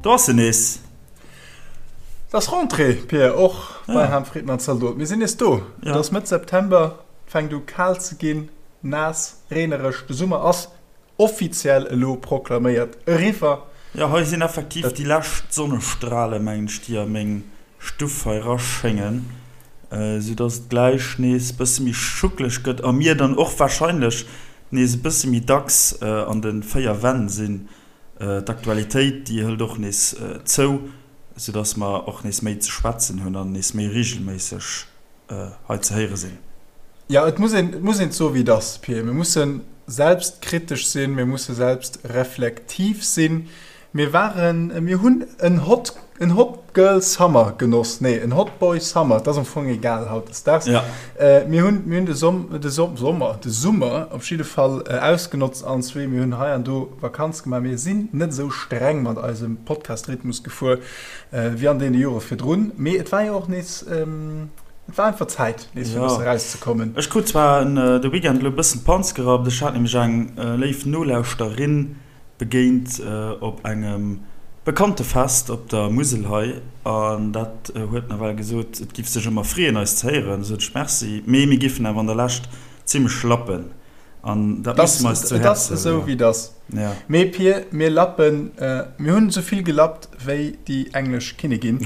Do ass en nees! Et ass Rentrée, Pir, och bei Ham Fridman Zaldot. Mir sinn nees do. Et ass Mëtt September, et fänkt u kal ze ginn, naass, reenereg. De Summer ass offiziell elo proklaméiert eriwwer. Jo, hei sinn effektiv déi lescht Sonnestrale, mengen ech, déi a meng Stuff hei raschéngen, sou dass et gläich nees bësse méi schuckeleg gëtt a mir dann och warscheinlech nees e bësse méi dacks an de 4 Wänn sinn. D'Aktualitéit, déi hëlt och nees zou, soudass mer och nees méi ze schwätzen hunn an nees méi reegelméisseg hei ze héiere sinn. Jo, et muss een, et muss een et soen, wéi et ass, Pir. Mir musse selbstkritesch sinn, mir musse selbstreflektiv sinn. Mir waren, mir hunn en hot, en hot girl summer genoss, nee, en hot boy summer, et ass am Fong egal hautdesdaags. Ja. Mir hunn, mir hunn de Som, de Som, Sommer, de Summer op jidde Fall ausgenotzt allen zwee. Mir hunn hei an do Vakanz gemaach. Mir sinn net esou streng mat eisem Podcast-Rhythmus gefuer wéi an deene Jore virdrun. Mee et war jo och nees, et war einfach Zäit, nees fir e bësse erauszekommen. Ech krut zwar de Weekend elo e bëssen d'Panz gerappt. Ech hat nämlech eng léif Nolauschterin begéint op engem bekannte Fest op der Musel hei an dat huet nawell gesot, et giff sech ëmmer freeën eis ze héieren. Du sot ech Merci, mee mir giffen awer an der Lescht zimmlech lappen an dat musse mer eis zu Et ass Häerze esou wéi et ass. Ja. Mee Pir, mir lappen, mir hunn esou vill gelappt wéi déi englesch Kinnigin.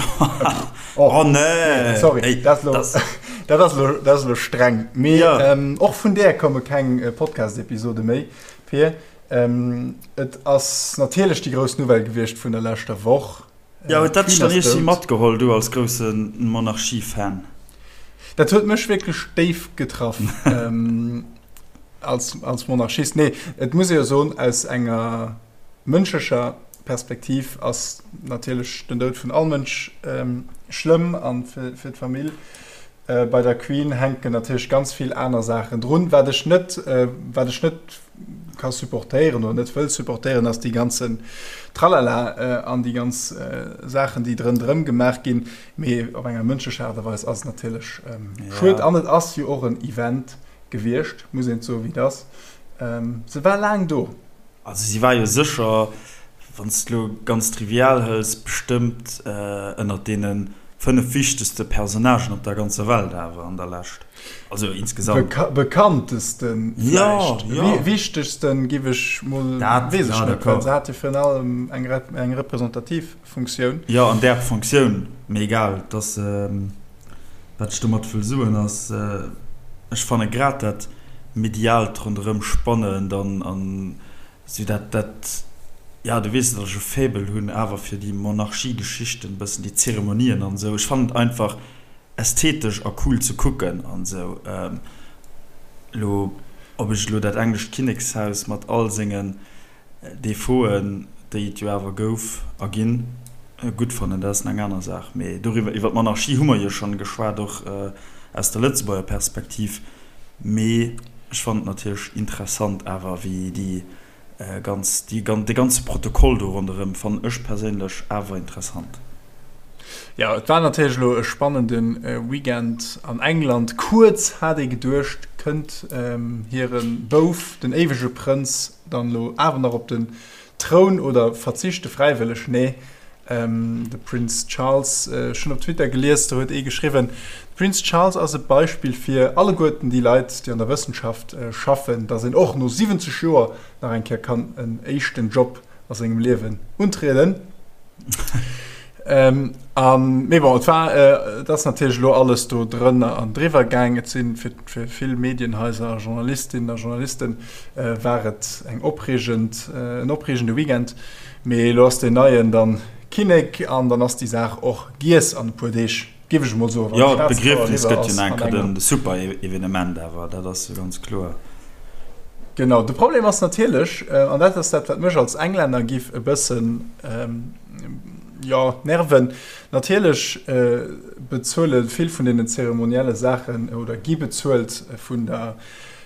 Oh, oh nee! Sorry, Ey, dat ass elo, dat ass elo, dat ass elo streng. Mee ja. och vun där komme keng Podcast-Episode méi, Pir. Et ass natierlech déi grouss Nouvelle gewiescht vun der leschter Woch. Jo, huet dat dech dann iergendwéi matgeholl, du als grousse Monarchie-Fan? Dat huet mech wierklech déif getraff als Monarchist. Nee, et muss ee jo soen, aus enger mënschlecher Perspektiv ass natierlech den Doud vun all Mënsch schlëmm a fir d'Famill. Bei der Queen hänken natierlech ganz vill aner Saachen drun. Wat ech net, wat ech net ka supportéieren oder net wëll supportéieren, ass déi ganzen Tralala an déi ganz Saachen, déi drënderëm gemaach ginn. Mee op enger mënschlecher Aart a Weis ass et natierlech schued. An et ass jo och en Event gewiescht, muss een et soen, wéi et ass. Se war laang do. Also si war jo sécher, wann s de elo ganz trivial hëls, bestëmmt ënnert deene 5 wichtegste Personnagen op der ganzer Welt awer an der Lescht. Also insgesamt. Bekanntesten vläicht. Jo, jo. Wichtegsten giff ech mol, Dat, weess ech ja, net, well d'accord. se hat jo virun allem eng eng representativ Funktioun. Jo, an där Funktioun, mee egal, et ass, wat ech domat wëll soen ass, ech fanne grad dat mediaalt ronderëm spannend an an sou dat, dat, ja, du weess, datt ech e Faible hunn awer fir déi Monarchie-Geschichten, e bëssen déi Zeremonien an esou. Ech fannen et einfach ästhetesch a cool ze kucken an esou. Elo, ob ech elo dat englescht Kinnekshaus mat all sengen Defauten, déi et jo awer gouf a ginn, gutt fannen, dat ass eng aner Saach. Mee doriwwer, iwwer d'Monarchie hu mer jo schonn geschwat, och aus der Lëtzebuerger Perspektiv. Mee ech fannen et natierlech interessant awer, wéi déi ganz, déi, dee ganze Protokoll do ronderëm fannen ech perséinlech awer interessant. Jo, et war natierlech elo e spannende Weekend an England. Kuerz hat ee geduecht, kënnt hire Bouf, den éiwege Prënz, dann elo awer nach op den Troun oder verzichte fräiwëlleg? Nee, de Prince Charles, ech hunn op Twitter gelies, do huet ee geschriwwen, de Prince Charles ass e Beispill fir alleguerten déi Leit, déi an der Wëssenschaft schaffen, datt een och no 70 Joer nach eng Kéier kann en éischten Job a sengem Liewen untrieden. Ähm, an, mee bon, et war, äh, et ass natierlech elo alles do drënner an driwwer gaang. Et sinn fir, fir vill Medienhaiser a Journalistinnen a Journalisten äh, war et eng opreegend, äh, en opreegende Weekend. Mee elo ass deen Neien dann Kinnek an dann ass déi Saach och giess an e puer Deeg. Géif ech emol soen, wann Jo, d'Begriefnis gëtt jo nach eng Kéier de Super-Evenement awer, dat ass jo ganz kloer. Genau, de Problem ass natierlech, an dat ass dat, wat mech als Englänner giff e bëssen, jo, nerven, natierlech bezuele vill vun deenen zeremonielle Saachen oder gi bezuelt vun der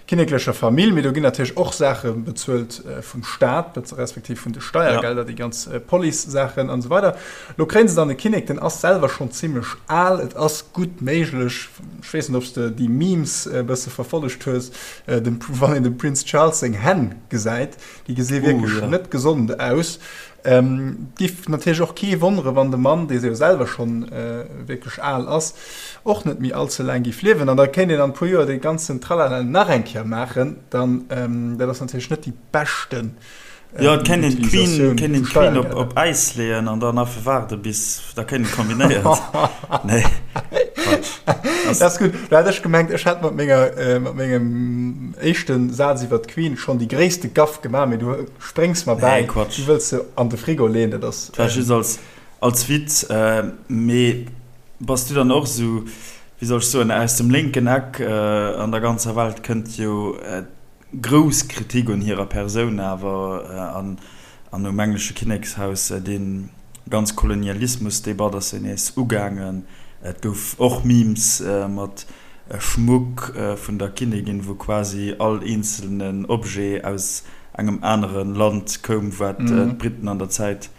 kinneklecher Famill, mee do ginn natierlech och Saache bezuelt vum Staat, respektiv vun de Steiergelder, déi ganz Police-Saachen an esou weider. Lo kréien se dann e Kinnek, den ass selwer schonn zimmlech al, et ass gutt méiglech, ech weess net, ob s de déi Memes e bësse verfollegt hues, dem, wann een dem Prince Charles seng Hänn gesäit, déi gesi wierklech net gesond aus. Et giff natierlech och kee wonnere wann de Mann, dee jo selwer schonn wierklech al ass, och net méi all ze laang giff liewen. An da kéint een an e puer Joer dee ganzen Tralala nach eng Kéier maachen. Dann, dat ass natierlech net déi beschten Jo, et kéint een d'Queen, kéint een d'Queen op, op Äis leeën an dann einfach waarde bis da kéint een kombinéiert. Nee, Quatsch. Dat ass gutt. Do hat ech gemengt, ech hätt mat menger, mat mengem éischte Saz iwwer d'Queen schonn déi gréisste Gaff gemaach, mee du spréngs mer bäi. Nee, Quatsch. Du wëlls se an de Frigo leeën, dat ass. Dat war just als, als Witz. Mee bass du dann och esou, wéi soll ech soen, aus dem lénken Eck an der ganzer Welt kënnt jo Grouss Kritik un hirer Persoun awer an an um englesche Kinnekshaus. Dee ganz Kolonialismusdebatt ass jo nees ugaangen. Et gouf och Memes mat Schmuck vun der Kinnigin, wou quasi all eenzelnen Objet aus engem anere Land koum, wat d'Briten an der Zäit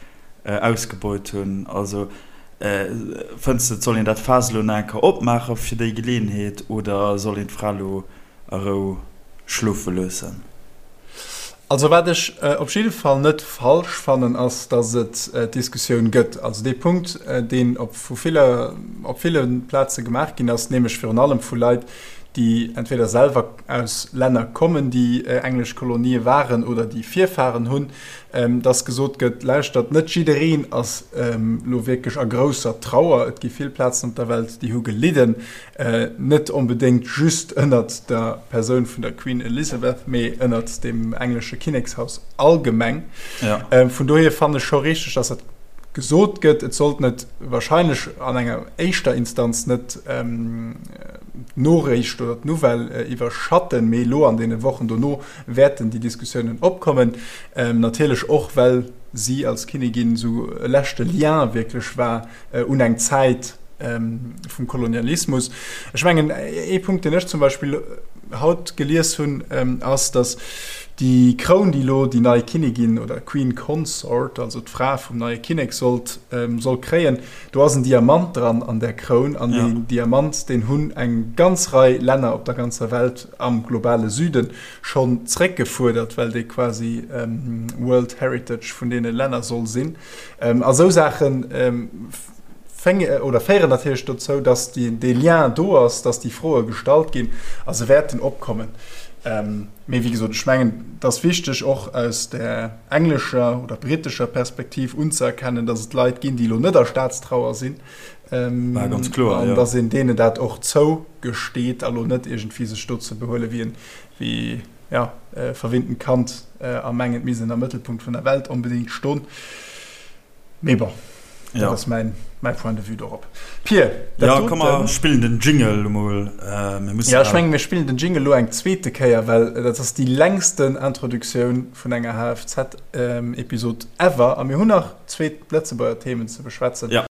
ausgebeut hunn. Also fënns de, et soll een dat Faass elo nach eng Kéier opmaache fir déi Geleeënheet oder soll een d'Fra elo a Rou schlofe loossen. Also wat ech op jidde Fall net falsch fannen, ass, datt et d'Diskussioun gëtt. Also dee Punkt, deen op vu ville, op ville Plaze gemaach ginn ass, nämlech virun allem vu Leit, déi entweder selwer aus Länner kommen, déi englesch Kolonië waren oder déi Virfahren hunn, datt gesot gëtt, Lauschtert, net jiddereen ass elo wierklech a grousser Trauer. Et gi vill Plazen op der Welt, déi hu gelidden. Net onbedéngt just ënnert der Persoun vun der Queen Elizabeth, mee ënnert dem englesche Kinnekshaus allgemeng. Ja. Vun dohier fannen ech scho richteg, dass dat gesot gëtt. Et sollt net wahrscheinlech an enger éischter Instanz net d'Noriicht oder d'Nouvelle iwwerschatten, mee elo an deene Wochen dono wäerten déi Diskussiounen opkommen. Natierlech och, well si als Kinnigin esou e leschte Lien wierklech war un eng Zäit vum Kolonialismus. Ech mengen, ee Punkt, deen ech zum Beispill haut gelies hunn, ass, datt déi Kroun, déi elo déi nei Kinnigin oder Queen Consort, also d'Fra vum neie Kinnek sollt, soll kréien, do ass en Diamant dran an där Kroun. An deen Diamant, deen hunn eng ganz Rei Länner op der ganzer Welt am globale Süde schonn zréckgefuerdert, well dee quasi World Heritage vun deene Länner soll sinn. A sou Saache oder féieren natierlech dozou, dass dee Lien do ass, dass déi Froe gestallt ginn a se wäerten opkommen. Mee wéi gesot, ech mengen, et ass wichteg, och aus där englescher oder brittescher Perspektiv unzëerkennen, dass et Leit ginn, déi elo net a Staatstrauer sinn, an dass een deenen dat och zougesteet a lo net iergendwéi sech do ze behuele wéi ja, verwinntent Kand a mengen, et misst een am Mëttelpunkt vun der Welt onbedéngt ston. Mee bon, dat ja. ass mäin, mäi Point de vue dorop. Pir, dat ja, komm, mer spillen den Jingle emol. Äh, mir mussen ja, ech mengen, mir spillen den Jingle lo eng zweete Kéier, well dat ass déi längsten Introduktioun vun enger HFZ-Episod ever. A mir hunn nach zweet Lëtzebuerger Themen ze beschwätzen. Ja.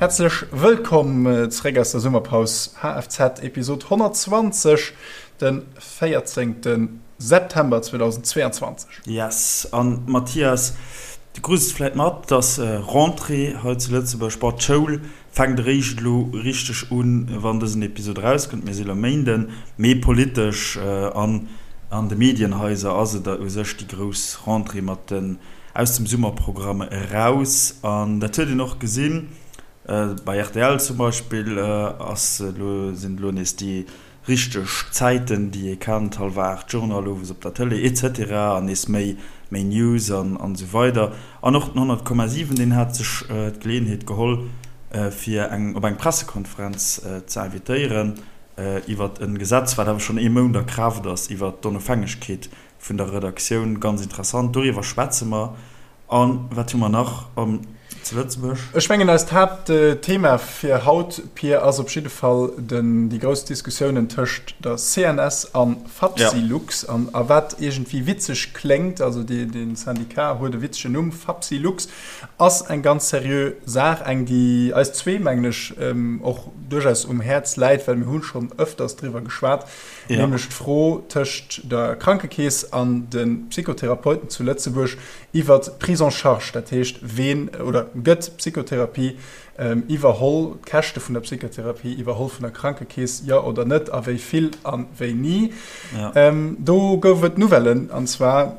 Häerzlech wëllkomm zeréck aus der Summerpaus, HFZ Episod 120, de 14. September 2022. Yes, an Mathias, du krus et vläit mat, dass Rentrée hei zu Lëtzebuerg, bon d'Schoul fänkt eréischt elo richteg un, wann dësen Episod erauskënnt, mir si elo Méinden, mee politesch an an de Medienhaiser ass et u sech déi grouss Rentrée mat den aus dem Summerprogramm eraus an dat huet een och gesinn, bei rtl zum Beispill ass elo, sinn elo nees déi Richteg Zäiten, déi ee kennt, hallwer 8 Journal owes op der Tëlee etc. An nees méi, méi News an esou weider. An och den 100,7, deen hat sech d'Geleeënheet geholl, fir eng op eng Pressekonferenz ze invitéieren iwwert e Gesetz, wat awer schonn ee Mount a Kraaft ass, iwwert d'Onofhängegkeet vun der Redaktioun. Ganz interessant, doriwwer schwätze mer. A wat hu mer nach? Zu Lëtzebuerg. Ech mengen eist Haaptthema fir haut, Pir, ass op jidde Fall den, déi grouss Diskussiounen tëscht der CNS an Fapsylux. An a wat iergendwéi witzeg kléngt, also dee, dee Syndicat huet e witzegen Numm, Fapsylux, ass eng ganz seriö Saach, eng déi eis zwee, mengen ech, och duerchaus um Häerz läit, well mir hu schonn ëfters driwwer geschwat, nämlech d'Fro tëscht der Krankekeess an de Psychotherapeuten zu Lëtzebuerg, Iwwert d'Prise en charge, dat heescht, ween oder gëtt d'Psychotherapie iwwerholl, d'Käschte vun der Psychotherapie iwwerholl vun der Krankekeess, jo oder net, a wéi vill a wéini. Do gouf et Nouvellen, an zwar,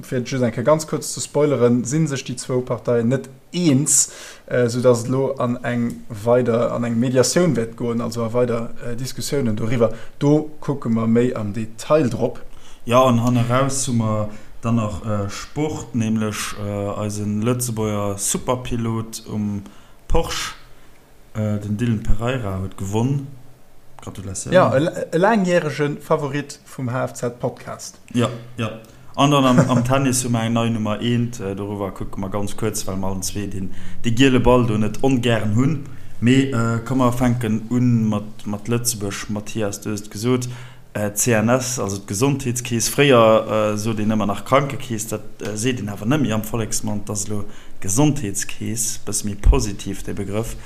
fir et just eng Kéier ganz kuerz ze spoileren, si sech déi zwou Parteien net eens, soudass et elo an eng weider, an eng Mediatioun wäert goen, also a weider Diskussiounen doriwwer. Do kucke mer méi am Detail drop. Jo, an hanneraus hu mer dann nach Sport, nämlech eise Lëtzebuerger Superpilot um Porsche. Den Dylan Pereira huet gewonn. Gratulatioun. Jo, e laangjärege Favorit vum HFZ-Podcast. Jo, jo. An dann am Tennis hu mer eng nei Nummer eent. Doriwwer kucke mer ganz kuerz, well mer allen zwee deen dee giele Ball do net ongären hunn. Mee komm mer fänken u mat Lëtzebuerg. Mathias, du hues et gesot, D'CNS, also d'Gesondheetskeess, fréier sot een ëmmer nach Krankekeess, dat seet een awer net méi am Volleksmond, dat ass elo Gesondheetskeess, bësse méi positiv dee Begrëff.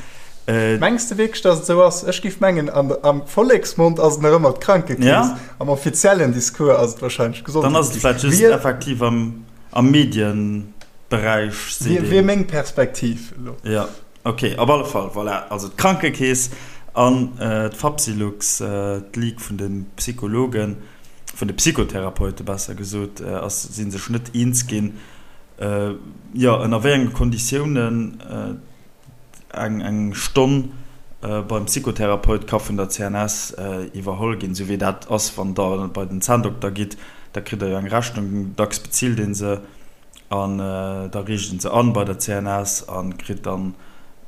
Mengs de wierklech, datt et esou ass? Ech géif mengen, am Volleksmond ass et nach ëmmer d'Krankekeess, am offiziellen Discours ass et warscheinlech d'Gesondheetskeess. Dann ass et vläicht just effektiv am Medienberäich seet een. Wier meng Perspektiv elo. Jo. Ok, op alle Fall, voilà, also d'Krankekeess an d'Fapsylux, d'Ligue vun de Psychologen, vun de Psychotherapeute besser gesot, ass, si sech net eens ginn, jo, ënner wéi enge Konditiounen eng eng Stonn beim Psychotherapeut ka vun der CNS iwwerholl ginn, esou wéi dat ass, wann Der bei den Zänndokter gitt, da kritt Der jo eng Rechnung, dacks bezilt ee se. An da riicht en se an bei der CNS a kritt dann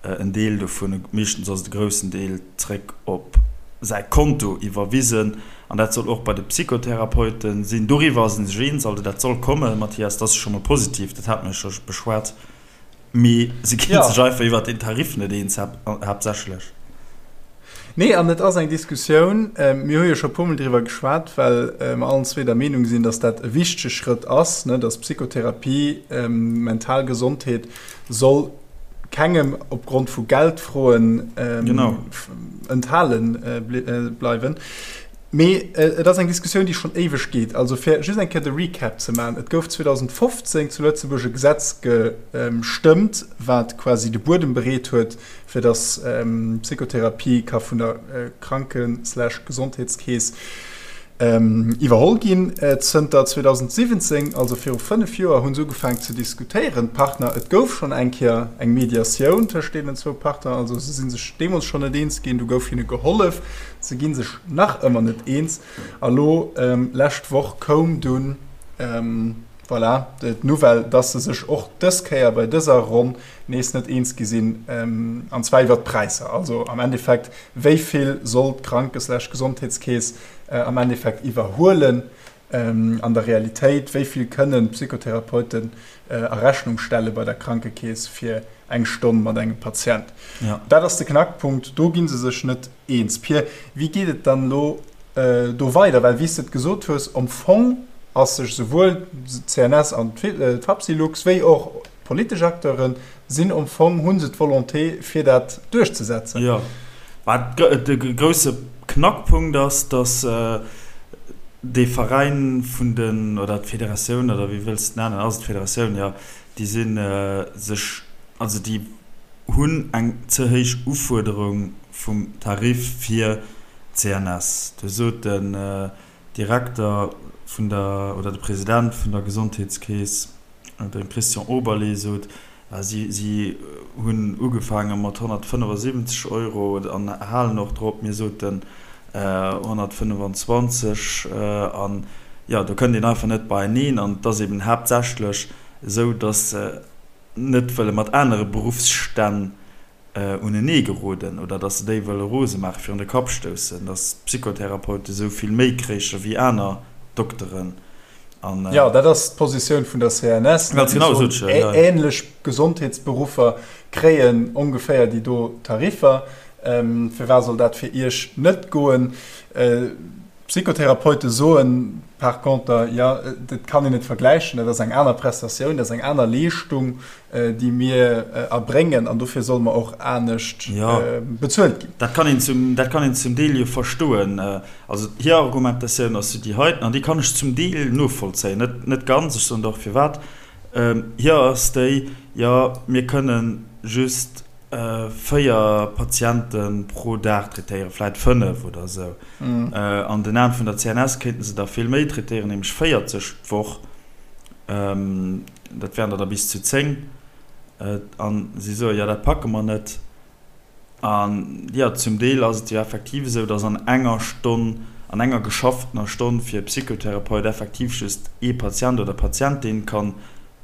en Deel dovun, meeschtens ass et e groussen Deel, zréck op säi Konto iwwerwisen. An dat soll och bei de Psychotherapeute sinn. Doriwwer ass ee sech eens, also dat soll kommen, Mathias, dat ass scho mol positiv, dat hate mir jo scho beschwat. Mee se gi sech einfach iwwert den Tarif net eens, haaptsächlech. Nee, an et ass eng Diskussioun, mir hu jo scho e puermol driwwer geschwat, well mer allen zwee der Meenung sinn, datt dat e wichtege Schrëtt ass, ne, datt Psychotherapie, mental Gesondheet soll kengem opgrond vu Geldfroen enthale bleiwen. Mee et ass eng Diskussioun, déi schonn éiweg geet. Also fir just eng Kéier de Recap ze maachen, Et gouf 2015 zu Lëtzebuerg e Gesetz gestëmmt, wat quasi de Buedem bereet huet, fir dass Psychotherapie ka vun der Kranken slash Gesondheetskeess iwwerholl ginn. Zënter 2017, also viru 5 Joer, hu se ugefaangen ze diskutéieren, d'Partner. Et gouf schonn eng Kéier eng Mediatioun tëscht deenen zwou Partner, also se si sech deemools schonn net eens ginn, du gouf hinne gehollef, se gi sech nach ëmmer net eens. A lo lescht Woch koum dunn, voilà, d'Nouvelle, dass se sech och dës Kéier bei dëser Ronn nees net eens gi sinn, an zwar iwwert d'Präisser. Also am Endeffekt, wéi vill soll d'Kranke slash Gesondheetskeess am Endeffekt iwwerhuelen an der Realitéit, wéi vill kënnen d'Psychotherapeuten a Rechnung stelle bei der Krankekeess fir eng Stonn mat engem Patient. Dat ass de Knackpunkt, do gi se sech net eens. Pir, wéi geet et dann elo do weider? Well wéi s de et gesot hues, am Fong ass sech souwuel d'CNS an d'Fapsylux wéi och D'politesch Acteure sinn am Fong, hu se d'Volonté fir dat duerchzesetzen. Jo, mä de grousse Knackpunkt ass, datt dee Veräin vun den, oder d'Federatioun, oder wéi wëlls de et nennen, ass et d'Federatioun, jo, déi si sech, also déi hunn eng ze héich Ufuerderung vum Tarif fir d'CNS. Do sot den Direkter vun der, oder de President vun der Gesondheetskeess, De Christian Oberlé sot, si hunn ugefaange mat 175 Euro an halen och drop. Mir soten 125 an jo, do kënnt een einfach net beieneen. An et ass eben haaptsächlech esou, datt se net wëlle mat anere Beruffsstänn unenee geroden oder datt se déi wëlle rose maachen, virun de Kapp stoussen, datt d'Psychotherapeute sou vill méi kréiche wéi aner Dokteren. An, jo, dat ass d'Positioun vun der CNS. Ganz genau, sot ech jo, ja. Ähnlech Gesondheetsberuffer kréien ongeféier déi do Tariffer. Firwat soll dat fir Iech net goen? D'Psychotherapeute soen par conter, jo, dat kann een net vergläichen, dat ass eng aner Prestatioun, dat ass eng aner Leeschtung, déi mir erbréngen an dofir solle mer och anescht bezuelt ginn. Dat kann een zum, dat kann een zum Deel jo verstoen. Also hir Argumentatioun ass jo déi heiten an déi kann ech zum Deel novollzéien, net, net ganz, ech soen der och firwat. Hir ass déi, jo, mir kënnen just 4 Patiente pro Dag traitéieren, vläit 5 oder esou. An den Aen vun der CNS kéinten se der vill méi traitéieren, nämlech 40 d'Woch. Dat wären der da bis zu 10. An si soen, jo, dat packe mer net. An jo, zum Deel ass et jo effektiv esou, datt an enger Stonn, an enger geschafftener Stonn fir e Psychotherapeut effektiv just ee Patient oder Patientin kann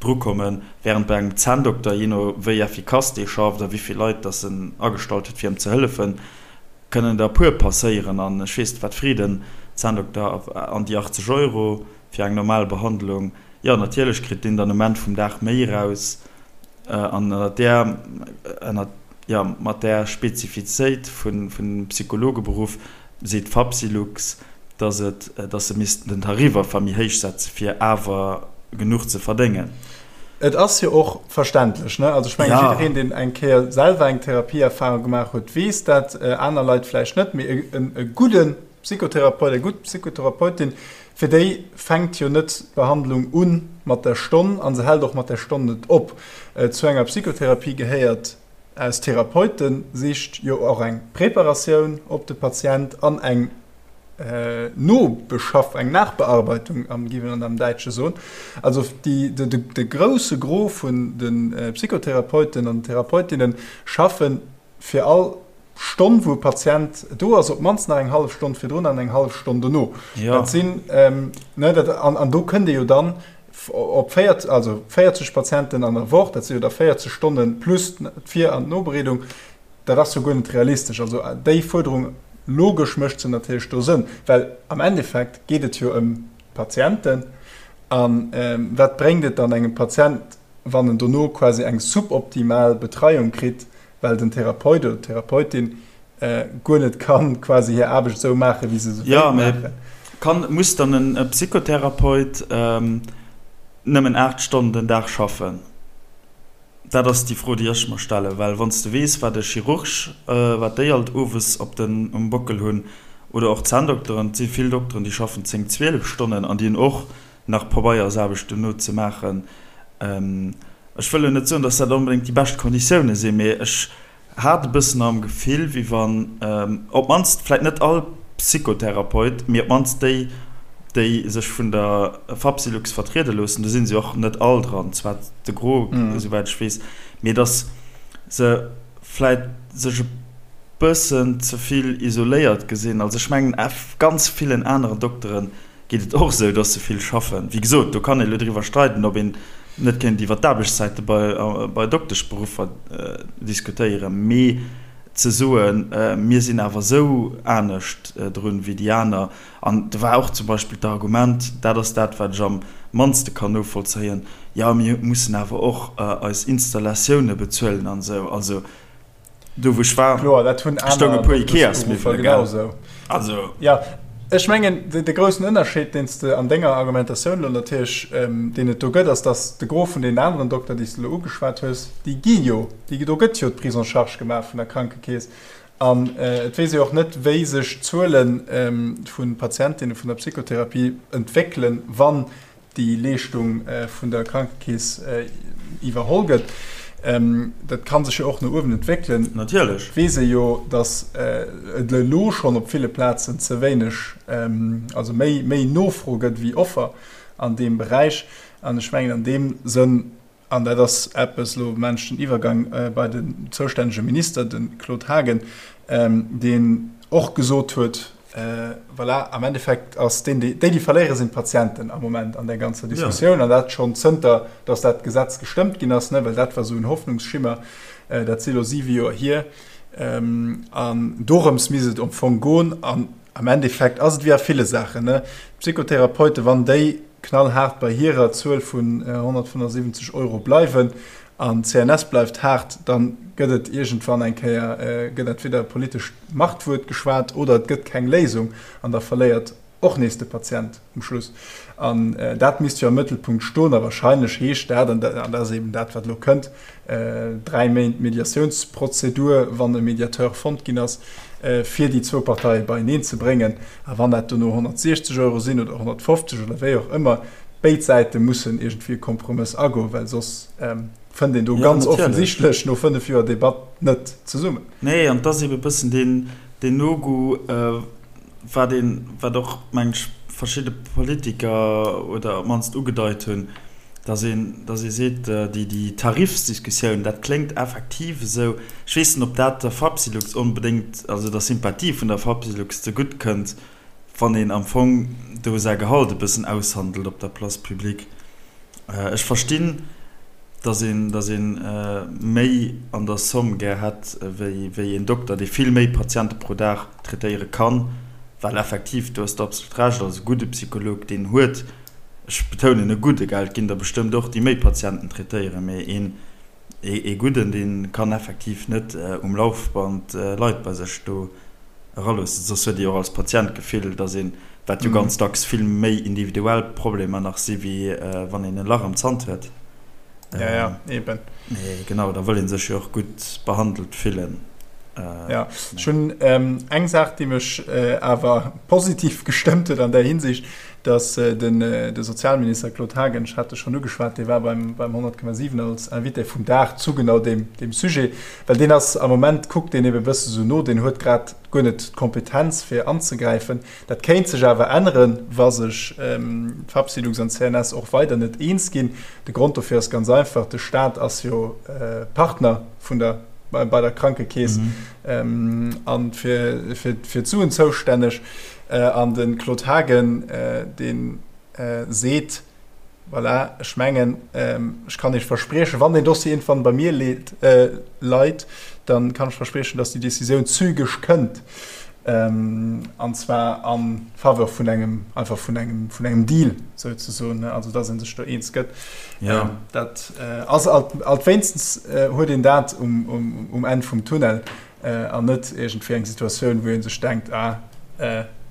drukommen, wärend bei engem Zänndokter, jee no wéi effikass dee schafft a wéi vill Leit datt en agestallt huet fir em ze hëllefen, kënnen der e puer passéieren. An ech weess net wat freet en Zänndokter an déi 80 Euro fir eng normal Behandlung? Jo, natierlech kritt deen dann um Enn vum Dag méi eraus. An ënnert där, ënnert, jo, mat där Spezifizéit vun, vun dem Psychologeberuff seet d'Fapsylux, dass et, dass se missten den Tarif einfach méi héich setze fir awer genuch ze verdéngen. Et ass jo och verständlech, ne? Also ech mengen, jiddereen, deen eng Kéier selwer eng Therapieerfahrung gemaach huet, weess dat, aner Leit vläicht net, mee e gudde Psychotherapeut, eng gutt Psychotherapeutin, fir déi fänkt jo net d'Behandlung u mat der Stonn a se hält och mat der Stonn net op. Zu enger Psychotherapie gehéiert aus Therapeutensicht jo och eng Preparatioun op de Patient an eng Nobeschaff, eng Nachbearbeitung, géif een am Däitsche soen. Also déi, de grousse Gros vun de Psychotherapeuten an Therapeutinnen schaffen fir all Stonn, wou e Patient do ass, op d'mannst nach eng hallef Stonn virdrun an eng hallef Stonn dono. Ja. Dat sinn, ne, dat, an, an do kënnt ee jo dann op 40, also 40 Patienten an der Woch, dat si jo da 40 Stonne plus d'Vir an d'Nobereedung, dat ass jo guer net realistesch. Also déi Fuerderung, logesch mécht se natierlech do Sënn, well am Endeffekt geet et jo ëm d'Patienten. A wat bréngt et dann engem Patient, wann en dono quasi eng suboptimal Betreiung kritt, well den Therapeut oder d'Therapeutin guer net kann quasi hir Aarbecht esou maachen, wéi se se wéilt maachen. Jo, mee kann, muss dann e Psychotherapeut nëmmen 8 Stonnen den Dag schaffen? Dat ass déi Fro, déi ech mer stellen. Well wann s de weess, wat e Chirurg, wat déi alt owes op den, um Bockel hunn, oder och d'Zänndokteren, et si vill Dokteren, déi schaffen 10, 12 Stonnen an déi hunn och nach Pabeiersaarbecht dono ze maachen. Ech wëll elo net soen, datt dat onbedéngt déi bescht Konditioune sinn, mee ech hat e bëssen am Gefill, wéi wann op d'mannst vläicht net all Psychotherapeut, mee op d'mannst déi, déi sech vun der Fapsylux vertriede loossen, do si se jo och net all dran, zwar de Gros, esouwäit ech weess, mee datt se vläicht sech e bëssen ze vill isoléiert gesinn. Also ech mengen, ganz villen aneren Dokteren geet et och esou, dass se vill schaffen. Wéi gesot, do kann ee elo driwwer streiden, ob een net kéint iwwer d'Aarbechtszäite bei Dokteschberuffer diskutéieren, mee ze soen, mir sinn awer esou anescht drun wéi déi aner, an do war och zum Beispill d'Argument, dat ass dat, wat ech am mannste kann novollzéien, jo mir mussen awer och eis Installatioune bezuelen an esou. Also Do wou ech war, Kloer, dat hunn stoung aner e puer Ikeas-Miwwele, Dokteschberuffer gell? genausou. Also. Jo, ech mengen, de groussen Ënnerscheed, deen s de an denger Argumentatioun elo natierlech, deen et do gëtt, ass, datt de Gros vun deenen aneren Dokter, déi s de elo ugeschwat hues, déi gi jo, déi, do gëtt jo d'Prise en charge gemaach vun der Krankekeess. An et weess ee och net, wéi sech d'Zuele vu Patientinne vun der Psychotherapie entwéckelen, wann déi Leeschtung vun der Krankekeess iwwerholl gëtt. Dat ka sech jo och no uewen entwéckelen. Natierlech. Et weess ee jo, datt et elo schonn op ville Plazen ze wéineg, also méi, méi Nofro gëtt wéi Offer an deem Beräich. An ech mengen an deem Sënn, an dat ass eppes, elo maachen ech den Iwwergang bei den zoustännege Minister, de Claude Haagen, deen och gesot huet, Voilà, am Endeffekt ass deen, déi, déi verléiere sinn d'Patienten am Moment an där ganzer Diskussioun. An dat schonn zënter, datt dat Gesetz gestëmmt ginn ass, ne, well dat war esou en Hoffnungsschimmer. Dat si elo siwe Joer hier. An dorëms misst et am Fong goen. An am Endeffekt ass et wéi a ville Saachen, ne, d'Psychotherapeuten, wann déi. knallhaart bei hirer Zuel vun 175 Euro bleiwen an d'CNS bleift haart, da gëtt et iergendwann eng Kéier, gëtt entweder e politescht Machtwuert geschwat oder et gëtt keng Léisung an da verléiert och nees de Patient um Schluss. An dat misst jo am Mëttelpunkt stoen. A wahrscheinlech heescht dat, an dat ass eben dat, wat elo kënnt, 3 Méint Mediatiounsprozedur, wann e Mediateur fonnt ginn ass, fir déi zwou Parteie beieneen ze bréngen. A wann dat dono 160 Euro sinn oder 150 oder wéi och ëmmer, béid Säite mussen iergendwéi e Kompromëss agoen, well soss fënnt een do ganz offensichtlech no 5 Joer Debatt net zesummen. Nee, an et ass ebe bëssen deen No-Go, wat een, wat och, meng ech, verschidde Politiker oder op d'mannst ugedeit hunn, dass een, dass ee seet, déi, déi Tarifsdiskussioun, dat kléngt effektiv esou, ech weess net, ob dat der Fapsylux onbedéngt, also der Sympathie vun der Fapsylux zegutt kënnt, wann een am Fong do säi Gehalt e bëssen aushandelt op der Place publique. Ech verstinn, dass een, dass ee méi an der Somme gär hätt wéi, wéi een Dokter, dee vill méi Patiente pro Dag traitéiere kann, well effektiv, do hues de absolut Recht, also e gudde Psycholog, deen huet, ech betounen e gudde, gell, et ginn der bestëmmt och, déi méi Patienten traitéieren, mee een, ee gudden, dee kann effektiv net um Laufband Leit bei sech do eraloossen, soss huet ee jo och als Patient d'Gefill, dass een, wat jo ganz dacks vill méi individuell Problemer nach si wéi wann een e Lach am Zant huet. Ja, ja, eben. Mee genau, da wëll ee sech jo och gutt behandelt fillen. Ja, ech hunn eng Saach, déi mech awer positiv gestëmmt huet an där Hinsicht, dass den de Sozialminister Claude Haagen, ech hat e schonn ugeschwat, dee war beim 100,7 als Invité vum Dag zu genau deem Sujet, well deen ass am Moment, kuckt deen ebe bësse sou no, deen huet grad guer net d'Kompetenz fir anzegräifen. Dat kéint sech awer änneren, wa sech d'Fapsylux an d'CNS och weider net eens ginn. De Grond dofir ass ganz einfach, De Staat ass jo Partner vun der bei der Krankekeess a fir d'Suen zoustänneg. An de Claude Haagen, dee seet, Voilà, ech mengen, ech kann Iech verspriechen, wann deen Dossier iergendwann bei mir leit, da kann ech verspriechen, datt déi Decisioun zügeg kënnt, an zwar a Faveur vun engem, einfach vun engem, vun engem Deal souzesoen, also datt ee sech do eens gëtt. Dat ass alt, wéinstens huet een dat um Enn vum Tunnel. An net iergendwéi eng Situatioun, wou ee sech denkt, ah,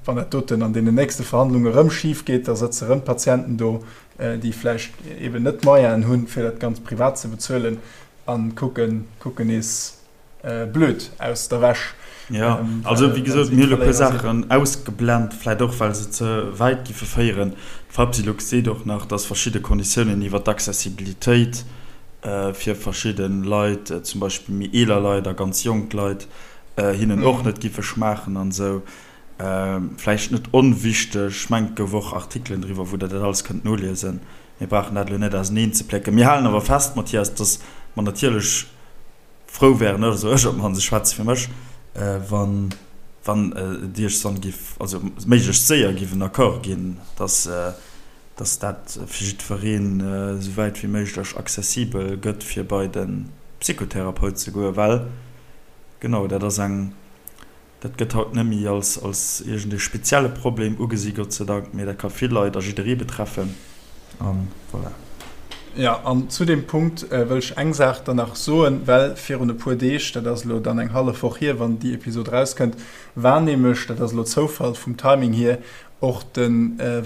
wann dat doten an deenen nächste Verhandlunge erëm schif geet, da sëtze erëm Patienten do, déi vläicht eeben net d'Moyenen hunn, fir dat Ganzt privat ze bezuelen a kucken, kucken nees blöd aus der Wäsch. Jo, also wéi gesot, mir hu elo e puer Saachen ausgeblent, vläicht och, well se ze wäit giffe féieren. D'Fapsylux seet och nach, dass verschidde Konditiounen iwwert d'Accessibilitéit, fir verschidde Leit, zum Beispill méi eeler Leit a ganz jonk Leit, hinnen och net giffe schmaachen an esou. Vläicht net onwichteg, ech mengen et gouf och Artikelen driwwer, wou der dat alles kënnt noliesen. Mir brauchen dat elo net auseneen ze plécken. Mir halen awer fest, Mathias, dass mer natierlech frou wären, also ech op d'mannst, ech schwätze fir mech, wann wann et iergendwann giff, also méiglechst séier giff en Accord ginn, dass dass dat fir jiddwereen esou wäit wéi méiglech accessibel gëtt, fir bei de Psychotherapeut ze goen, well genau dat ass eng, dat gëtt haut net méi als als iergend ee spezielle Problem ugesi, Gott sei Dank, mee dat ka vill Leit a jidderee betreffen a voilà. Jo, an zu deem Punkt wëll ech eng Saach dann nach soen, well virun e puer Deeg, dat ass elo dann eng hallef Woch hier, wann déi Episod erauskënnt, war nämlech, dat ass elo Zoufall vum Timing hier, Och de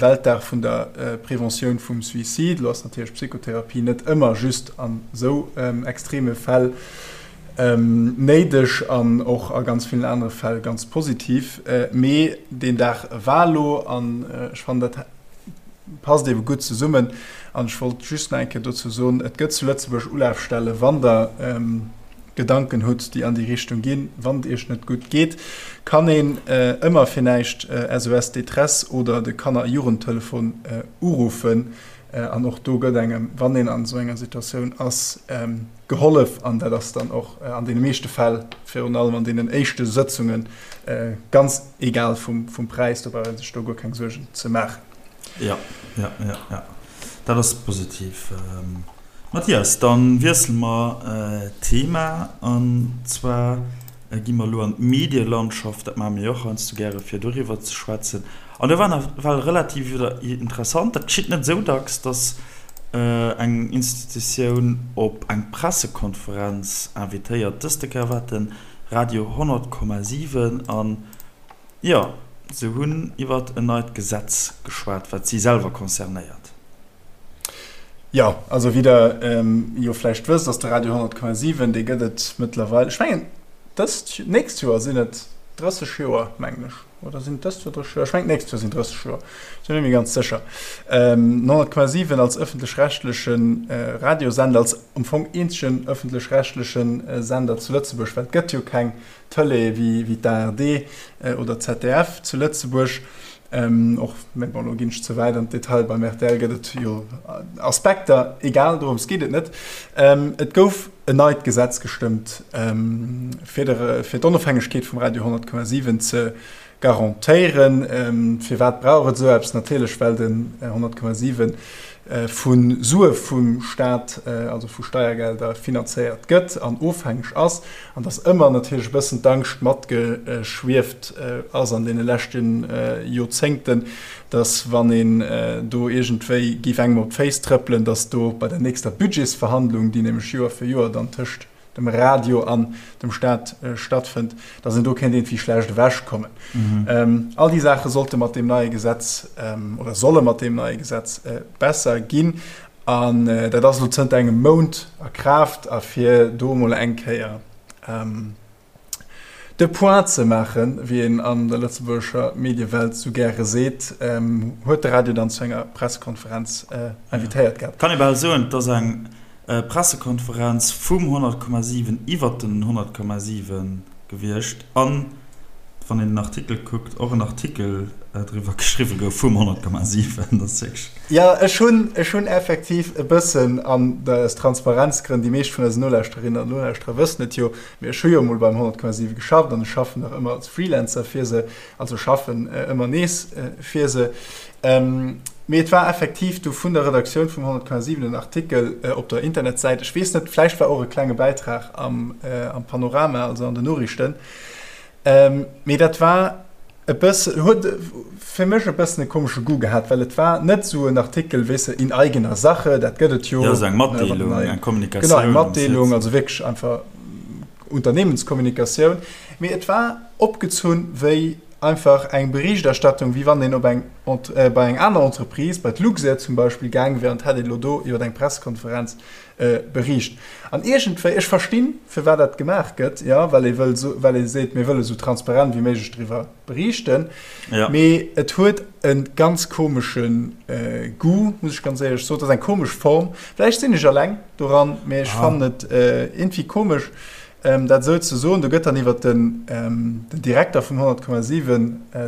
Weltdag vun der Preventioun vum Suicide. Elo ass natierlech Psychotherapie net ëmmer just an esou extreme Fäll néideg an och a ganz villen anere Fäll ganz positiv. Mee deen Dag war elo an ech fannen dat passt eebe gutt zesummen. An ech wollt just nach eng Kéier dozou soen, et gëtt zu Lëtzebuerg Ulafstelle wann der Gedanken hutt, déi an déi Richtung ginn, wann et iech net gutt geet, kann een ëmmer fir näischt SOS Détresse oder de Kanner a Jugendtelefon uruffen. An och do gëtt engem, wann een an esou enger Situatioun ass, gehollef. An dat ass dann och an deene meeschte Fäll, virun allem an deenen éischte Sëtzungen, ganz egal vum Präis. Do brauch ee sech do guer keng Suergen ze maachen. Jo, jo, jo, jo, dat ass positiv. Mathias, dann wiessele mer d'Thema an zwar gi mer elo an d'Medielandschaft. Dat maache mir jo och heiansdo gäre fir doriwwer ze schwätzen. An do war nawell relativ interessant, dat geschitt net esou dacks, dass eng Institutioun op eng Pressekonferenz invitéiert. Dëste Kéier war et de Radio 100,7 an jo, se hunn iwwert en neit Gesetz geschwat, wat si selwer concernéiert. Jo, also wéi der jo vläicht wësst, ass de Radio 100,7, dee gëtt et mëttlerweil, ech mengen dëst, nächst Joer sinn et 30 Joer, mengen ech, oder sinn et dëst Joer 30 Joer? Ech mengen d'nächst Joer sinn 30 Joer, ech sinn net méi ganz sécher. 100,7 als ëffentlech-rechtleche Radiosender, als am Fong eenzegen ëffentlech-rechtleche Sender zu Lëtzebuerg, well et gëtt jo keng Tëlee wéi d'ARD oder d'ZDF zu Lëtzebuerg. Och, mä bon, elo ginn ech ze wäit an d'Detail, beim rtl gëtt et jo Aspekter, egal, dorëms geet et net. Et gouf en neit Gesetz gestëmmt, fir de, fir d'Onofhängegkeet vum Radio 100,7 ze garantéieren. Firwat brauch et esou eppes? Natierlech, well den 100,7 vu Sue vum Staat, also vu Steiergelder, finanzéiert gëtt an ofhängeg ass, an dass ëmmer natierlech e bëssen d'Angscht matgeschwieft ass an deene leschte Joerzéngten, dass wann een do iergendwéi géif engem op d'Féiss trëppelen, dass do bei der nächster Budgetsverhandlung, déi nämlech Joer fir Joer dann tëscht dem Radio an dem Staat stattfënnt, dass een do kéint iergendwéi schlecht ewechkommen. All déi Saache sollte mat deem neie Gesetz oder solle mat deem neie Gesetz besser ginn. An dat ass elo zënter engem Mount a Kraaft. A fir do emol eng Kéier de Point ze maachen, wéi een an der lëtzebuergescher Mediewelt sou gäre seet, huet de Radio dann zu enger Pressekonferenz invitéiert gehat. Kann ee bal soen, et ass eng Pressekonferenz vum 100,7 iwwert den 100,7 gewiescht an, wann een den Artikel kuckt, och en Artikel driwwer geschriwwe gouf vum 100,7. Dat ass wierklech. Jo, ech hunn, ech hunn effektiv e bëssen, an aus Transparenzgrënn, déi meescht vun eisen Nolauschterinnen an Nolauschterer wëssen et jo, mee ech hu jo emol beim 100,7 geschafft an ech schaffen nach ëmmer als Freelancer fir se, also schaffen ëmmer nees fir se. Mee et war effektiv du vun der Redaktioun vum 100,7 en Artikel op der Internetsäit. Ech weess net, vläicht war och e klenge Bäitrag am Panorama, also an den Noriichten. Mee dat war e bësse, huet fir mech e bëssen e komesche Goût gehat, well et war net esou en Artikel, weess de, in eigener Sache, dat gëtt et jo. Jo, esou eng Matdeelung, eng Kommunikatioun. Genau, eng Matdeelung, also wierklech einfach Unternehmenskommunikatioun. Mee et war opgezunn wéi Einfach eng Berichterstattung, wéi wann een op eng, bei eng aner Entreprise, bei d'Luxair zum Beispill, gaang wär an hätt een elo do iwwer eng Pressekonferenz bericht. An iergendwéi, ech verstinn, firwat dat gemaach gëtt, jo, well ee wëll, well ee seet, mir wëlle sou transparent wéi méiglech driwwer berichten, mee et huet e ganz komesche Goût, muss ech ganz éierlech soen. Et ass eng komesch Form. Vläicht sinn ech eleng doran, mee ech fannen et iergendwéi komesch. Dat esou ze soen, do gëtt dann iwwer den Direkter vum 100,7,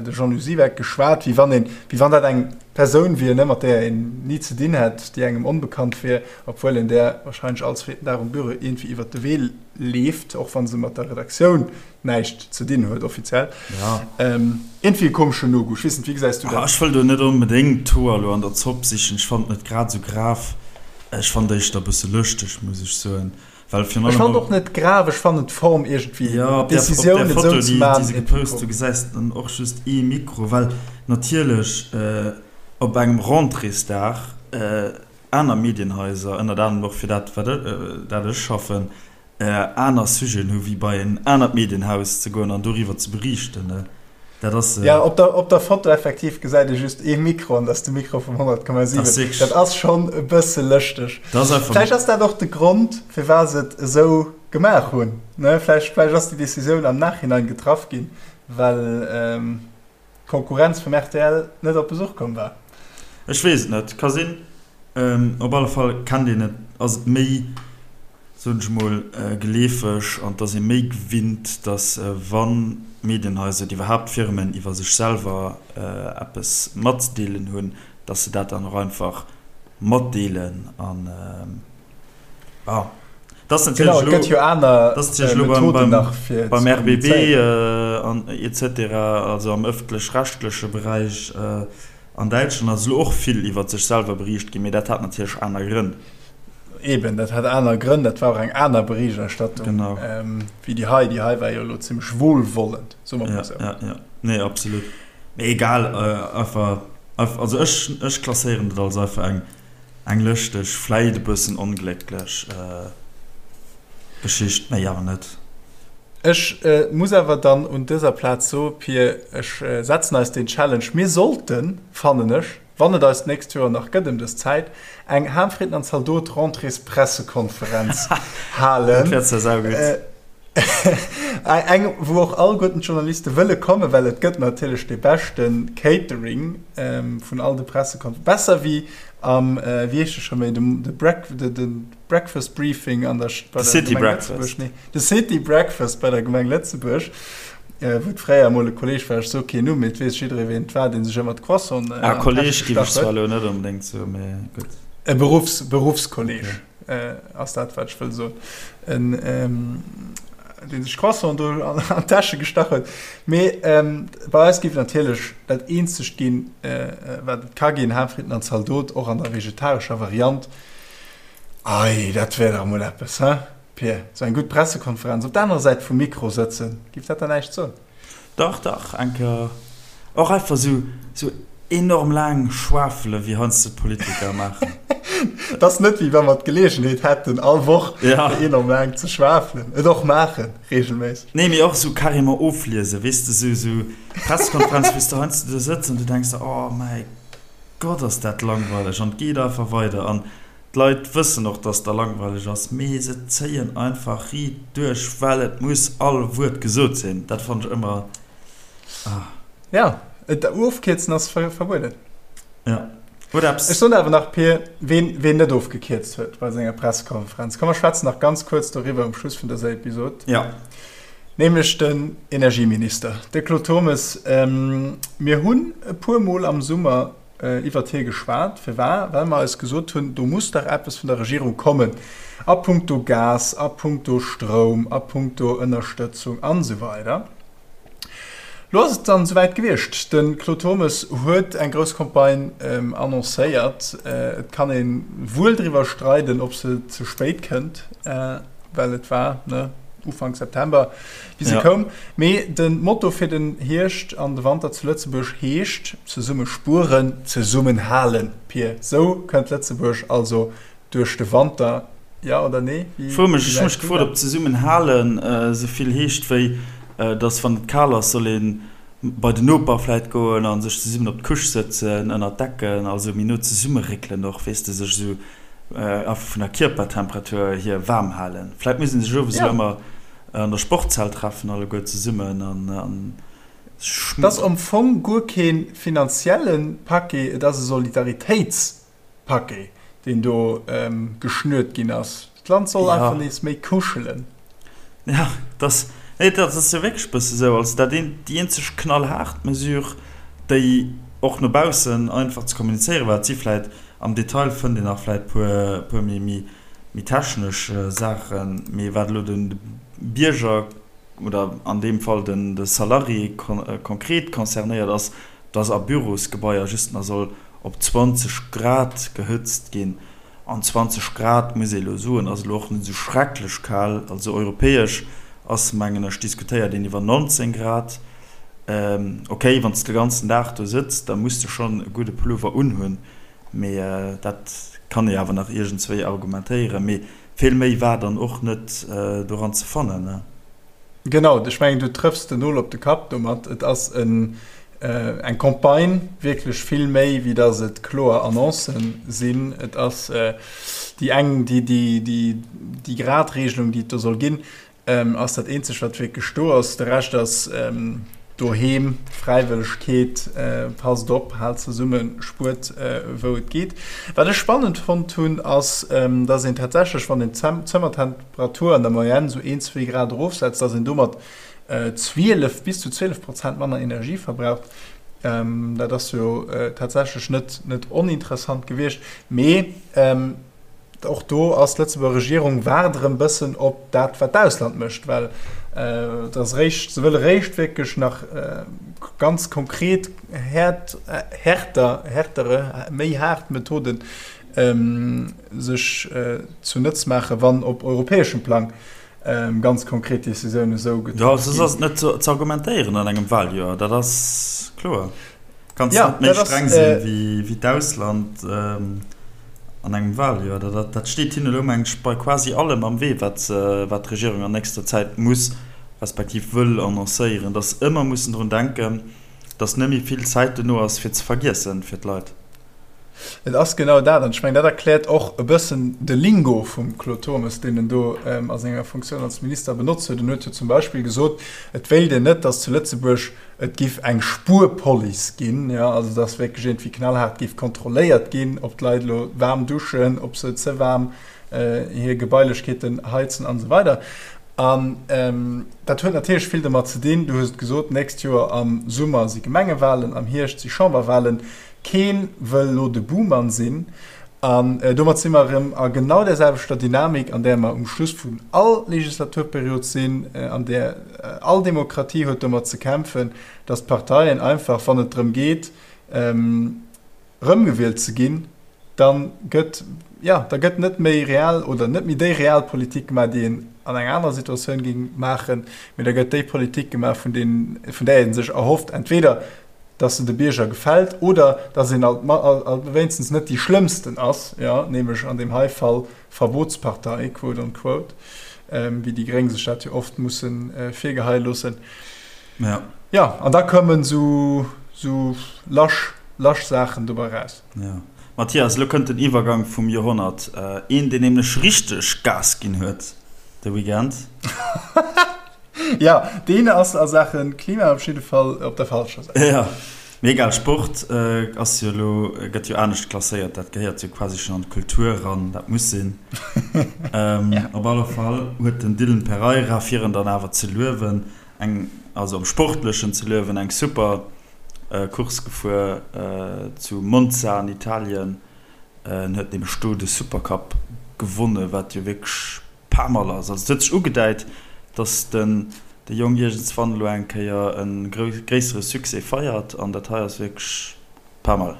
de Jean-Lou Siweck, geschwat, wéi wann een, wéi wann dat eng Persoun wier, ne, mat där een ni ze dinn hätt, déi engem onbekannt wier, obwuel een där wahrscheinlech all zweeten Dag um Büro iergendwéi iwwer de Wee leeft, och wa se mat der Redaktioun näischt ze dinn huet, offiziell. Iergendwéi e komeschen No-Goût. Ech weess net, wéi gesäis du dat? Ech wëll do net onbedéngt d'Hoer elo an der Zopp sichen. Ech fannen et net grad esou grav. Ech fannen et éischter e bësse lëschteg, muss ech soen. Well virun allem. Ech fannen och net grav, ech fannen d'Form iergendwéi, ja, op d'Decisioun et esou ze maachen. Déi se gepost hu gesäis de dann och just ee Mikro, well natierlech op engem Rentréesdag aner Medienhaiser, ënnert anerem och fir dat wat dat ech schaffen, aner Sujeten hu wéi bei en anert Medienhaus ze goen an doriwwer ze beriichten. Dat ass. Ja, op der, op der Foto effektiv gesäit ee just ee Mikro an dat ass de Mikro vum 100,7. Dat ass schonn e bësse lëschteg. Dat ass einfach. Vläicht ass dat och de Grond, firwat se et esou gemaach hunn, ne? Vläicht, vläicht ass déi Decisioun am Nachhinein getraff ginn, well d'Konkurrenz vum rtl net op Besuch komm war. Ech weess et net. Ka sinn. Op alle Fall kennt een et, ass et méi. soen ech mol, geleefeg an et ass ee méi gewinnt, datt wa Medienhaiser oder iwwerhaapt Firmen iwwer sech selwer eppes matzedeelen hunn, datt se dat dann och einfach matdeelen. An bon, et ass natierlech elo beim RBB an et cetera, also am ëffentlech-rechtleche Beräich an Däitschland ass elo och vill iwwer sech selwer beriicht ginn, mee dat hat natierlech aner Grënn. Eben, dat hat aner Grënn, dat war och eng aner Berichterstattung wéi déi hei. Déi hei war jo elo zimmlech wohlwollend, soe mer mol esou. Ja, ja, nee, absolut. Mee egal, einfach, also ech, ech klasséieren dat als einfach eng, eng lëschteg, vläit e bëssen onglécklech Geschicht, méi awer net. Ech muss awer dann un dëser Plaz soe, Pir, ech setzen eis deen Challenge, mir sollten, fannen ech, wann et eis d'nächst Joer nach gëtt ëm dës Zäit, eng Ham-Fritten an Zaldot-Rentréespressekonferenz halen. Dat wär zwar saugutt. Eng, wou och alleguerten d'Journaliste wëlle kommen, well et gëtt natierlech dee beschte Catering vun all de Pressekonferenzen. Besser wéi am, wéi heescht e scho méi, de Breakfast Briefing an der, bei der Gemeng Lëtzebuerg. Nee, de City Breakfast bei der Gemeng Lëtzebuerg, wou et fréier emol e Kolleeg war, ech soe keen Numm, mee et weess jidderee ween et war, dee sech ëmmer d'Croissanten an d'Täsch gestach huet. Ah, Kolleeg géif ech zwar elo net onbedéngt soen, mee gutt. E Beruffs, Beruffskolleeg. Ass dat wat ech wëll soen. En deen sech Croissant do an d'Täsche gestach huet. Mee bei eis géif et natierlech dat eenzegt ginn, wat et ka ginn, Haarfritten an Zaldot, och an der vegetarescher Variant. Ei, dat wär dach emol eppes, he Pir? Sou eng gutt Pressekonferenz, op der anerer Säit vum Mikro sëtzen, géif dat der näischt soen? Dach, dach, eng Kéier och einfach sou, sou enorm laang schwafelen, wéi heiansdo d'Politiker maachen. Et ass net, wéi wa mer d'Geleegenheet hätten, all Woch fir enorm laang ze schwafelen. Et och maachen, regelméisseg. Nee, mee och sou carrément ofliesen, weess de, sou, sou Pressekonferenz, wou s de heiansdo do sëtz an du denks der, oh mäi Gott, ass dat langweileg an et geet einfach weider an D'Leit wëssen och, dass der langweileg ass, mee se zéien einfach riit duerch, well et muss all Wuert gesot sinn. Dat fannen ech ëmmer, ah. Ja, et ofkierzen ass verbueden. Ja, huet eppes. Ech soen awer nach, Pir, ween, ween net ofgekierzt huet bei senger Pressekonferenz. Komm, mer schwätzen nach ganz kuerz doriwwer um Schluss vun dëser Episod. Ja. Nämlech den Energieminister, de Claude Turmes. Mir hunn e puermol am Summer iwwert hie geschwat. Firwar? Well mer eis gesot hunn, do muss dach eppes vun der Regierung kommen a puncto Gas, a puncto Stroum, a puncto Ënnerstëtzung an esou weider. Lo ass et dann esouwäit gewiescht. De Claude Turmes huet eng grouss Campagne annoncéiert. Et kann ee wuel driwwer streiden, ob se ze spéit kënnt, well et war, ne, Ufank September, wéi se koum. Mee de Motto fir den Hierscht an de Wanter zu Lëtzebuerg heescht, Zesumme spueren, zesummen halen. Pir, sou kënnt Lëtzebuerg also duerch de Wanter, jo oder nee? Wéi Fro mech, ech hu mech gefrot, ob zesummen halen esou vill heescht wéi, dass wann et kal ass, soll ee bei den Noper vläit goen a sech zesummen op d'Couche sëtzen, ënner d'Decken, also méi no zesummeréckelen och, weess de, sech esou einfach vun der Kierpertemperatur hier waarm halen. Vläit muss ee sech owes elo ëmmer An der Sportshal treffen alleguer zesummen an Et ass am Fong guer kee finanzielle Paquet, et ass e Solidaritéitspaquet, deen do geschnürt ginn ass. D'Land soll einfach nees méi kuschelen. Jo, et ass, nee, dat ass jo wierklech e bësse sou. Also dat een, déi eenzeg knallhaart Mesure, déi och no baussen einfach ze kommunizéiere war, et si vläit am Detail fënnt een nach vläit puer, puer méi, méi méi technesch Saachen, mee wat elo de Bierger oder an deem Fall de Salarié konkret concernéiert ass, dass a Bürosgebaier just nach soll op 20 Grad gehëtzt ginn. An 20 Grad, muss ee elo soen, ass elo och net esou schrecklech kal. Also europäesch ass, mengen ech, diskutéiert een iwwer 19 Grad. Ok, wann s de de ganzen Dag do sëtz, da muss de schonn e gudde Pullover unhunn. Mee dat kann ee awer nach iergendswéi argumentéieren. Mee vill méi war dann och net doran ze fannen. Genau, ech mengen, du trëffs den Nol op de Kapp domat. Et ass eng Campagne, wierklech vill méi, wéi datt et kloer Annoncen sinn. Et ass déi eng, déi Gradregelung, déi et do soll ginn, Ass dat eenzegt wat wierklech do ass. De Rescht ass doheem, Fräiwëllegkeet, passt op, haalt zesummen, spuert wou et geet. Wat ech spannend fonnt hunn ass, dass een tatsächlech wann een d'Zëmmertemperatur an der Moyenne sou een, zwee Grad erofsetzt, dass een domat 12 bis zu 12 Prozent manner Energie verbraucht. Dat ass jo tatsächlech net net oninteressant gewiescht, mee. Och do ass d'Lëtzebuerger Regierung waart erëm bëssen op dat, wat d'Ausland mécht, well et ass eréischt, se wëlle réischt wierklech nach ganz konkret häert, härter, härtere, méi haart Methoden sech zunëtz maachen, wann op europäeschem Plang. ganz konkret Decisiounen esou getraff ginn. Jo, soss ass et net ze argumentéieren an engem Waljoer, dat ass kloer. Kanns net méi streng sinn wéi d'Ausland an engem Waljoer. Dat steet hinnen elo, mengen ech, bei quasi allem am Wee, wat d'Regierung an nächster Zäit muss, respektiv wëll annoncéieren, datt se ëmmer mussen drun denken, datt net méi vill Zäit dono ass fir ze vergiessen fir d'Leit. Et ass genau dat, an ech mengen, dat erkläert och e bëssen de Lingo vum Claude Turmes, deen en do a senger Funktioun als Minister benotzt huet. En huet jo zum Beispill gesot, et wéilt een net, datt zu Lëtzebuerg et giff eng Spuerpolice ginn, jo, also datt wierklech iergendwéi knallhaart giff kontrolléiert ginn, ob d'Leit elo waarm duschen, ob se ze waarm hir Gebailechkeeten heizen an esou weider. An dat huet natierlech vill domat ze dinn, du hues et gesot, d'nächst Joer am Summer si Gemengewahlen, am Hierscht si Chamberwahlen. Kee wëll elo de Buhmann sinn. An domat si mer erëm a genau där selwechter Dynamik, an där mer um Schluss vun all Legislaturperiod sinn, an där all Demokratie huet domat ze kämpfen, datt d'Parteien einfach, wann et drëm geet, erëmgewielt ze ginn, da gëtt, jo, da gëtt net méi real oder net méi déi real Politik gemaach, déi een an enger anerer Situatioun géing maachen, mee da gëtt déi Politik gemaach, vun där ee sech erhofft, entweder dass se de Bierger gefält oder dass een alt wéinstens net déi schlëmmsten ass, jo, nämlech an deem hei Fall Verbotspartei, quote on quote, wéi déi Gréng sech dat jo oft musse virgeheie loossen. Ja. Jo, an da kommen esou lasch, lasch Saachen dobei raus. Ja. Mathias, elo kënnt den Iwwergang vum Joerhonnert. Een, deen nämlech richteg Gas ginn huet de Weekend. Jo, deen ass a Saache Klima op jidde Fall op der falscher Säit. Jo, mee egal, Sport ass jo elo, gëtt jo anescht klasséiert, dat gehéiert jo quasi schonn an d'Kultur eran, dat muss sinn. Op alle Fall huet den Dylan Pereira, fir en dann awer ze luewen, eng, also am Sportlechen ze luewen, eng super Course gefuer zu Monza an Italien. En huet nämlech do de Supercup gewonnen, wat jo wierklech Paar Mol ass. Also et huet sech ugedäit, datt den de Jong iergendswann elo eng Kéier e gréissere Succès feiert an dat hei ass wierklech paar Mol.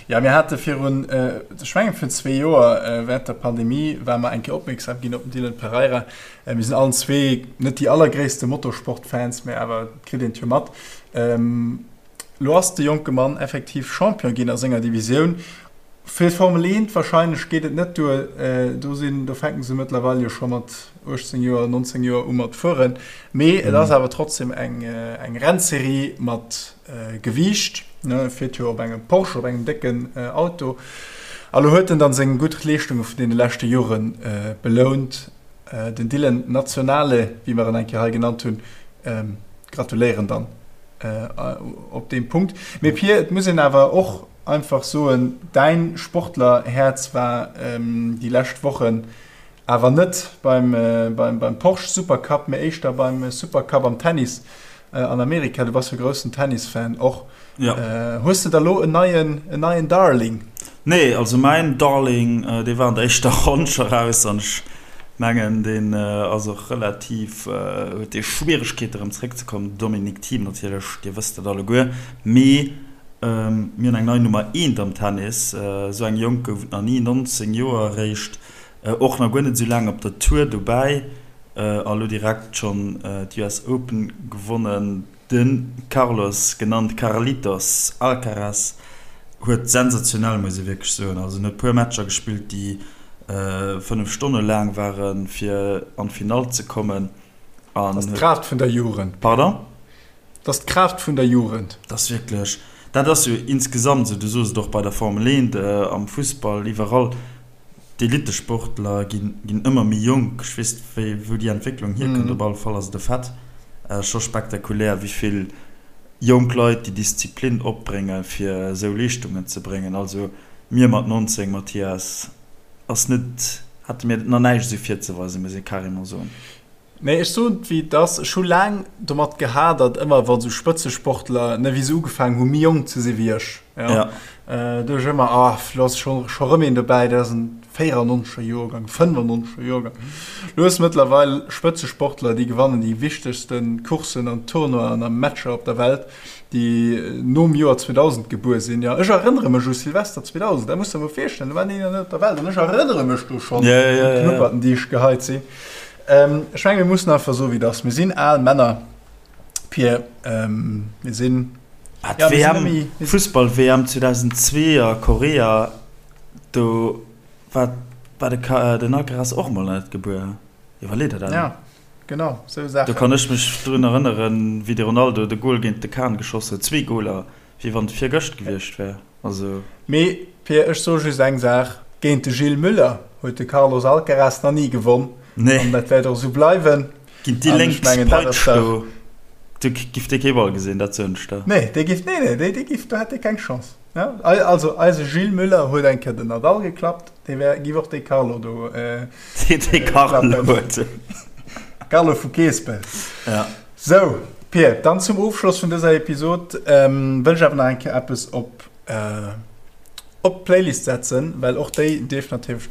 Jo, mir hate virun, ech mengen virun zwee Joer, während der Pandemie, ware mer eng Kéier opmierksam ginn op den Dylan Pereira. Mir sinn allen zwee net déi allergréisste Motorsportfans, mä awer et kritt een et jo mat. Lo ass de jonke Mann effektiv Champion ginn a senger Divisioun. Fir d'Formel 1 warscheinlech geet et net duer, do sinn, do fänken se mëttlerweil jo scho mat 18 Joer, 19 Joer u mat fueren. Mee et ass awer trotzdem eng eng Rennserie mat Gewiicht, ne, e fiert jo op engem Porsche, op engem décken Auto. A lo huet en dann seng gutt Leeschtunge vun deene leschte Jore belount. Den Dylan Nazionale, wéi mer en eng Kéier hei genannt hunn, gratuléieren dann op deem Punkt. Mee Pir, et muss een awer och einfach soen, däin Sportlerhäerz war déi lescht Wochen awer net beim beim Porsche Supercup, mee éischter beim Supercup am Tennis an Amerika. Du bass jo groussen Tennisfan och. Hues de da lo en neien en neien Darling? Nee, also mäin Darling, dee war an der éischter Ronn scho raus an ech mengen, deen ass och relativ, huet dee Schwieregkeete rëm zréckzekommen. Dominic Thiem natierlech, dir wësst dat alleguer. Mee mir hunn eng nei Nummer eent am Tennis, esou eng jonk gouf et nach ni, 19 Joer eréischt, och nach guer net esou laang op der Tour dobäi a lo direkt schonn d'US Open gewonnen. De Carlos, genannt Carlitos Alcaraz, huet sensationell, muss ee wierklech soen, also en huet puer Matcher gespillt, déi 5 Stonne laang waren, fir an d'Finall ze kommen. Dat ass d'Kraaft vun der Jugend. Pardon? Dat ass d'Kraaft vun der Jugend. Dat ass wierklech, dat ass jo insgesamt esou, du soos et och bei der Formel 1, am Fussball, iwwerall, D'Elittesportler ginn ëmmer méi jonk. Ech weess net, wou déi Entwécklung hierkënnt. Op alle Fall ass et e Fait, scho spektakulär, wéi vill jonk Leit déi Disziplin opbréngen, fir esou Leeschtungen ze bréngen. Also mir mat 19, Mathias, ass net, hate mir nach näischt esou virzeweisen, muss ee carrément soen. Nee, ech soen et wéi et ass, ech hu laang domat gehadert, ëmmer wa sou Spëtzesportler, ne, wéi se ugefaangen hu méi jonk ze si wéi ech, jo, do ech ëmmer, ah, lo ass scho scho rëm een dobäi, dat ass en 94er Joergang, 95er Joergang. Lo hues mëttlerweil Spëtzesportler, déi gewannen déi wichtegste Courssen an Tournoien a Matcher op der Welt, déi nom Joer 2000 gebuer sinn, jo. Ech erënnere mech u Silvester 2000, dat muss der mol virstellen, do war een nach net op der Welt an ech erënnere mech do schonn un d'Knupperten, déi ech geheit sinn. Ech menge mir mussen einfach soen, wéi et ass. Mir sinn al Männer, Pir. Mir sinn. Ah, d'WM, Fussball-WM 2002 a Korea, do war, war de, den Alcaraz och mol nach net gebuer. Iwwerlee der dat emol. Ja, genau, sou Saachen. Do kann ech mech drun erënneren, wéi de Ronaldo de Gol géint de Kahn geschoss huet, zwee Goler, wéi wann et virgëscht gewiescht wär. Also. Mee Pir, ech soe just eng Saach, Géint de Gilles Müller huet de Carlos Alcaraz nach ni gewonn. Nee. An dat wäert och esou bleiwen. Géint déi lénk Peitsch do, do giff dee kee Ball gesinn, dat soen ech der. Nee, dee giff, nee, nee, dee, dee giff, do hätt dee keng Chance. Ja, also eise Gilles Müller huet eng Kéier den Nadal geklappt, dee wär, giff och dee Carlo do klappen. Dee Carlo huet. Carlo vu Keespelt. Ja. Sou, Pir, dann zum Ofschloss vun dëser Episod wëll ech awer nach eng Kéier eppes op op d'Playlist setzen, well och déi dierf natierlech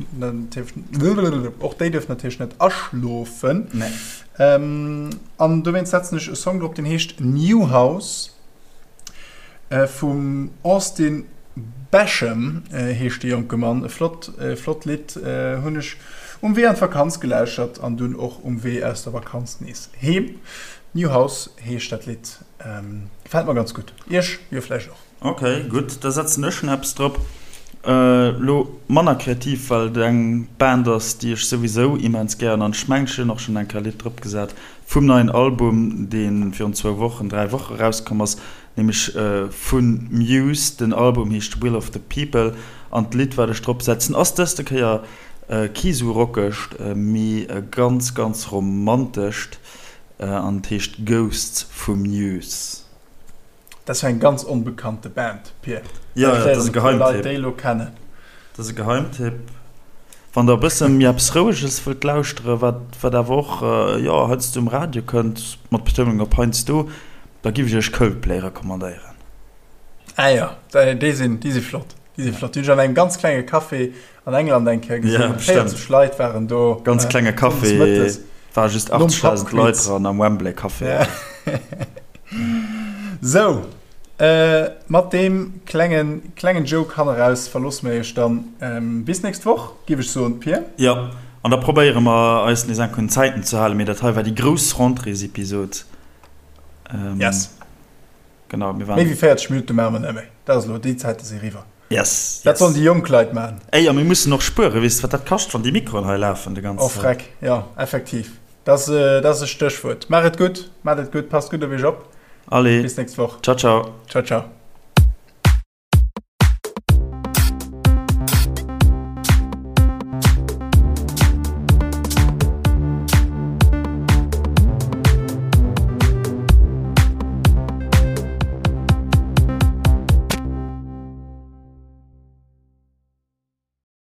och déi dierf natierlech net aschlofen. Nee. An dowéinst setzen ech e Song drop, deen heescht New House vum Austin Basham heescht de jonke Mann. E flott flott Lidd, hunn ech um Wee an d'Vakanz gelauschtert an dunn och um Wee aus der Vakanz nees heem. New House heescht dat Lidd, gefält mer ganz gutt. Iech jo vläicht och. Ok, gutt, da setzen ech schon eppes drop. Lo manner kreativ, well et eng Band ass, déi ech souwisou immens gären an ech mengen ech hunn och schon eng Kéier e Lidd drop gesat vum neien Album, dee virun zwou Wochen, 3 Woche erauskomm ass, nämlech vu Muse. Den Album heescht Will of the People an d'Lidd wat ech drop setzen ass dëste Kéier kee sou rockegt, mee e ganz ganz romantescht an et heescht Ghosts vu Muse. Dat ass jo eng ganz onbekannte Band, Pir. Jo, jo, dat ass e Geheimtipp. Leit déi elo kennen. Dat ass e Geheimtipp. Wann der e bësse méi eppes Roueges wëllt lauschteren, wat, wat awer och, jo, heiansdo um Radio kënnt, mat Betounung op heiansdo, da giff ech iech Coldplay recommandéieren. Ah jo, déi sinn, déi si flott. Déi si flott. Déi hunn ech an engem ganz klenge Café An England eng Kéier gesinn. Ja, 40 Leit waren do. Ganz klenge Café, war just 80.000 Leit dran am Wembley Café. Ja. Sou, mat deem klengen, klengen Joke hanneraus verloosse mir iech dann. Bis nächst Woch, giff ech soen, Pir. Jo, an da probéiere mer eis nees enk un d'Zäiten ze halen, mee dat hei war déi grouss Rentréesepisod. Yes. Genau, mir waren. Méi wéi 40 Minutte maache mer net méi. Dat ass elo, déi Zäite si eriwwer. Yes, Dat sollen déi jonk Leit maachen. Ey, a mir mussen och spueren. Weess de, wat dat kascht, wann déi Mikroen hei lafen de ganzen Oh, freck, jo, effektiv. Dat ass e Stéchwuert. Maach et gutt, maacht et gutt, passt gutt op iech op. Allez. Bis nächst Woch. Ciao, ciao. Ciao, ciao.